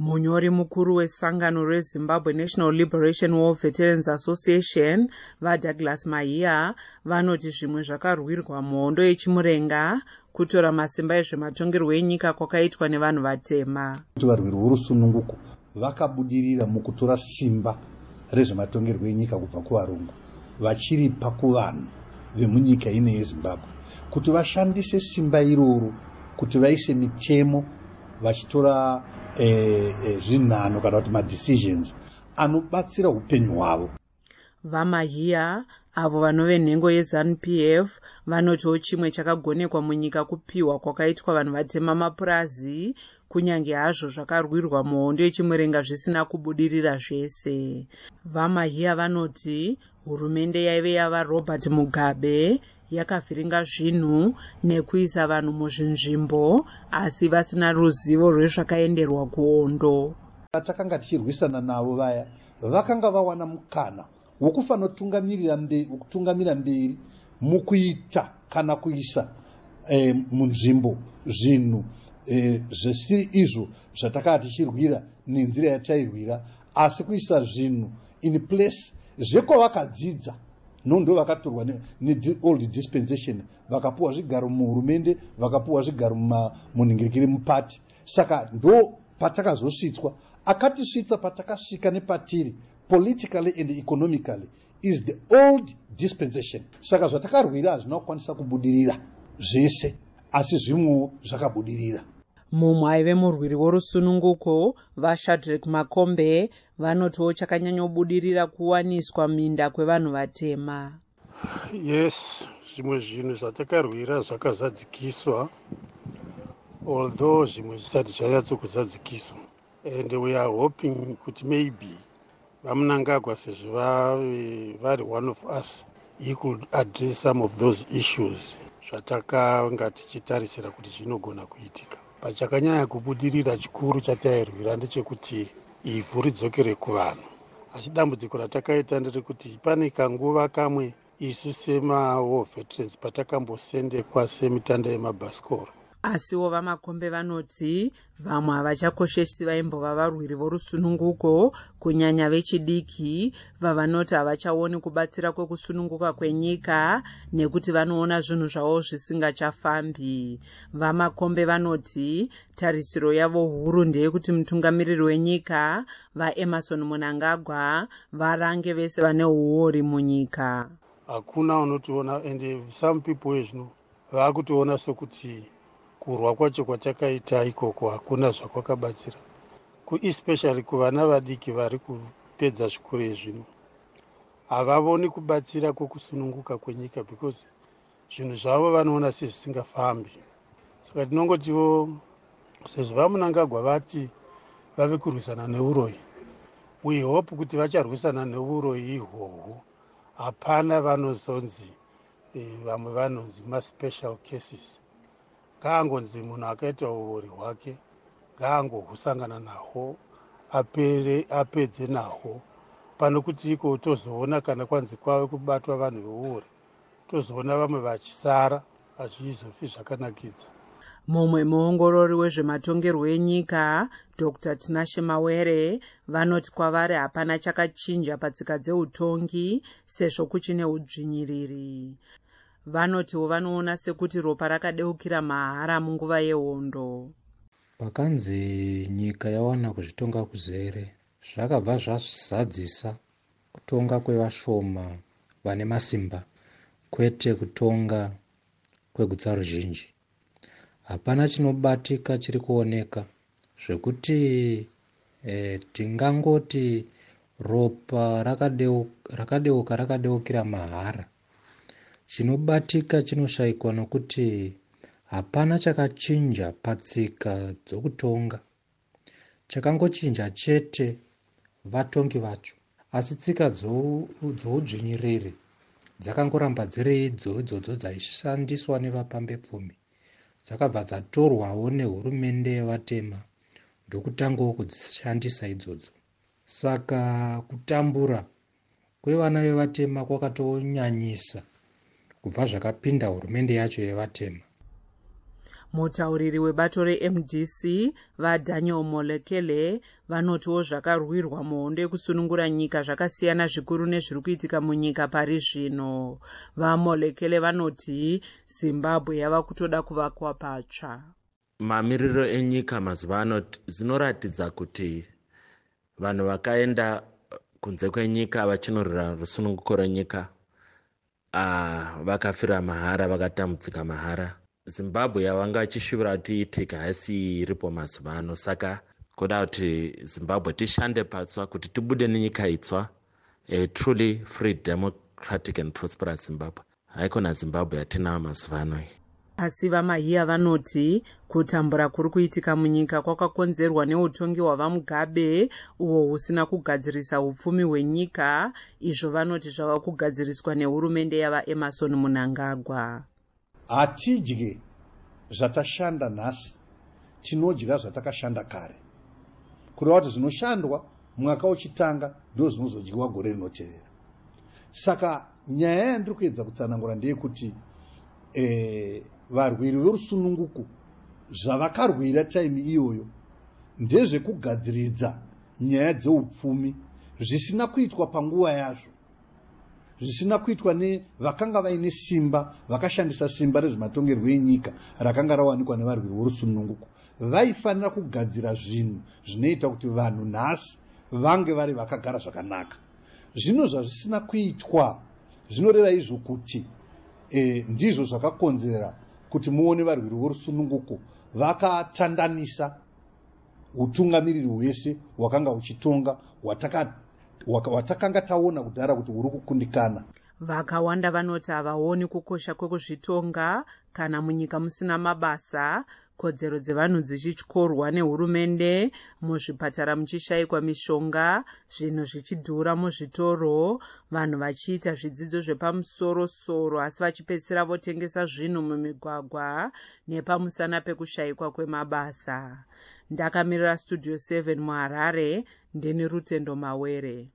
Munyori mukuru wesangano reZimbabwe National Liberation War Veterans Association, VaDouglas Mahiya, vanoti zvimwe zvakarwirwa muhondo yeChimurenga kutora masimba ezvematongerwo enyika kwakaitwa nevanhu vatema. Kuti varwiri vorusununguko vakabudirira mukutora simba rezvematongerwo enyika kubva kuvarungu vachiripa kuvanhu vemunyika ino yeZimbabwe kuti vashandise simba iroro kuti vaise mitemo vachitora zvinhano kana kuti madecisions anobatsira upenyu hwavo. VaMahiya, avo vanove nhengo yeZanu PF, vanotiwo chimwe chakagonekwa munyika kupiwa kwakaitwa vanhu vatema mapurazi, kunyange hazvo zvakarwirwa muhondo yeChimurenga zvisina kubudirira zvese. VaMahiya vanoti hurumende yaive yavaRobert Mugabe yakavhiringa zvinhu nekuisa vanhu muzvinzvimbo asi vasina ruzivo rwezvakaenderwa kuhondo. Vatakanga tichirwisana navo vaya vakanga vawana mukana wokufanotungamirira kutungamira mberi mukuita kana kuisa munzvimbo zvinhu zvisiri izvo zvatakanga tichirwira nenzira yatairwira, asi kuisa zvinhu in place zvekwavakadzidza. Ndo vakatorwa neold dispensation, vakapuwa zvigaro muhurumende, vakapuwa zvigaro munhingirikiri, mupati. Saka ndo patakazosvitswa. Akatisvitsa patakasvika nepatiri politically and economically is the old dispensation. Saka zvatakarwira hazvina kukwanisa kubudirira zvese, asi zvimwewo zvakabudirira. Mumwe aive murwiri worusununguko, VaShadrek Makombe, vanotiwo chakanyanyobudirira kuwaniswa minda kwevanhu vatema. Yes, zvimwe zvinhu zvatakarwira zvakazadzikiswa, although zvimwe zvisati zvanyatsokuzadzikiswa, and we are hoping kuti maybe VaMnangagwa, sezvo vari one of us, he could address some of those issues zvatakanga tichitarisira kuti zvinogona kuitika. Pachakanyanya kubudirira chikuru chatairwira ndechekuti ivhu ridzokere kuvanhu, asi dambudziko ratakaita nderekuti pane kanguva kamwe isu semawar veterans patakambosendekwa semitanda yemabhasikoro. Asiwo VaMakombe vanoti vamwe havachakoshesi vaimbova varwiri vorusununguko, kunyanya vechidiki, vavanoti havachaoni kubatsira kwekusununguka kwenyika nekuti vanoona zvinhu zvavo zvisingachafambi. VaMakombe vanoti tarisiro yavo huru ndeyekuti mutungamiriri wenyika, VaEmmerson Mnangagwa, varange vese vane uori munyika. Hakuna unotiona, and some people ezvino vaakutoona sekuti kurwa kwacho kwatakaita ikoko hakuna zvakwakabatsira, kuespecially kuvana vadiki vari kupedza zvikoro ezvino. Havavoni kubatsira kwokusununguka kwenyika because zvinhu zvavo vanoona sezvisingafambi. Saka tinongotiwo sezvo VaMnangagwa vati vave kurwisana neuroyi, we hope kuti vacharwisana neuroyi ihwohwo. Hapana vanozonzi vamwe vanonzi maspecial cases. Ngaangonzi munhu akaita uori hwake ngaangohusangana nahwo, apere, apedze nahwo, pano kuti iko tozoona kana kwanzi kwave kubatwa vanhu veuori, tozoona vamwe vachisara. Hazvizofi zvakanakidza. Mumwe muongorori wezvematongerwo enyika, Dr Tinashe Mawere, vanoti kwavari hapana chakachinja patsika dzeutongi sezvo kuchine udzvinyiriri. Vanotiwo vanoona sekuti ropa rakadeukira mahara munguva yehondo. Pakanzi nyika yawana kuzvitonga kuzere, zvakabva zvazadzisa kutonga kwevashoma vane masimba, kwete kutonga kwegutsa ruzhinji. Hapana chinobatika chiri kuoneka zvekuti tingangoti ropa rakadeuka rakadeukira mahara. Chinobatika chinoshayikwa nokuti hapana chakachinja patsika dzokutonga. Chakangochinja chete vatongi vacho, asi tsika dzoudzvinyiriri dzakangoramba dziri idzo idzodzo dzaishandiswa nevapambepfumi. Dzakabva dzatorwawo nehurumende yevatema ndokutangawo kudzishandisa idzodzo. Saka kutambura kwevana vevatema kwakatonyanyisa kubva zvakapinda hurumende yacho yevatema. Mutauriri webato reMDC, VaDaniel Molekele, vanotiwo zvakarwirwa muhondo yekusunungura nyika zvakasiyana zvikuru nezviri kuitika munyika pari zvino. VaMolekele vanoti Zimbabwe yava kutoda kuvakwa patsva. Mamiriro enyika mazuva ano zvinoratidza kuti vanhu vakaenda kunze kwenyika vachinorwira rusununguko rwenyika vakafira mahara, vakatambudzika mahara. Zimbabwe yavanga vachishuvira kuti iitike haisi iripo mazuva ano. Saka kuda kuti Zimbabwe tishande patsva kuti tibude nenyika itsva, a truly free, democratic and prosperous Zimbabwe, haikona Zimbabwe yatinayo mazuva ano iyi. Asi VaMahiya vanoti kutambura kuri kuitika munyika kwakakonzerwa neutongi hwaVaMugabe, uhwo husina kugadzirisa upfumi hwenyika, izvo vanoti zvava kugadziriswa nehurumende yaVaEmmerson Mnangagwa. Hatidye zvatashanda nhasi, tinodya zvatakashanda kare. Kureva kuti zvinoshandwa mwaka uchitanga ndo zvinozodyiwa gore rinotevera. Saka nyaya yandiri kuedza kutsanangura ndeyekuti varwiri verusununguko zvavakarwira time iyoyo ndezvekugadziridza nyaya dzeupfumi zvisina kuitwa panguva yazvo, zvisina kuitwa nevakanga vaine simba, vakashandisa simba rezvematongerwo enyika rakanga rawanikwa nevarwiri vorusununguko. Vaifanira kugadzira zvinhu zvinoita kuti vanhu nhasi vange vari vakagara zvakanaka. Zvino zvazvisina kuitwa, zvinoreva izvo kuti ndizvo zvakakonzera kuti muone varwiri vorusununguko vakatandanisa utungamiriri hwese hwakanga huchitonga, hwatakanga taona kudhara kuti huri kukundikana. Vakawanda vanoti havaoni kukosha kwekuzvitonga kana munyika musina mabasa, kodzero dzevanhu dzichityorwa nehurumende, muzvipatara muchishayikwa mishonga, zvinhu zvichidhura muzvitoro, vanhu vachiita zvidzidzo zvepamusorosoro asi vachipedzisira votengesa zvinhu mumigwagwa nepamusana pekushayikwa kwemabasa. Ndakamirira Studio 7 muHarare, ndini Rutendo Mawere.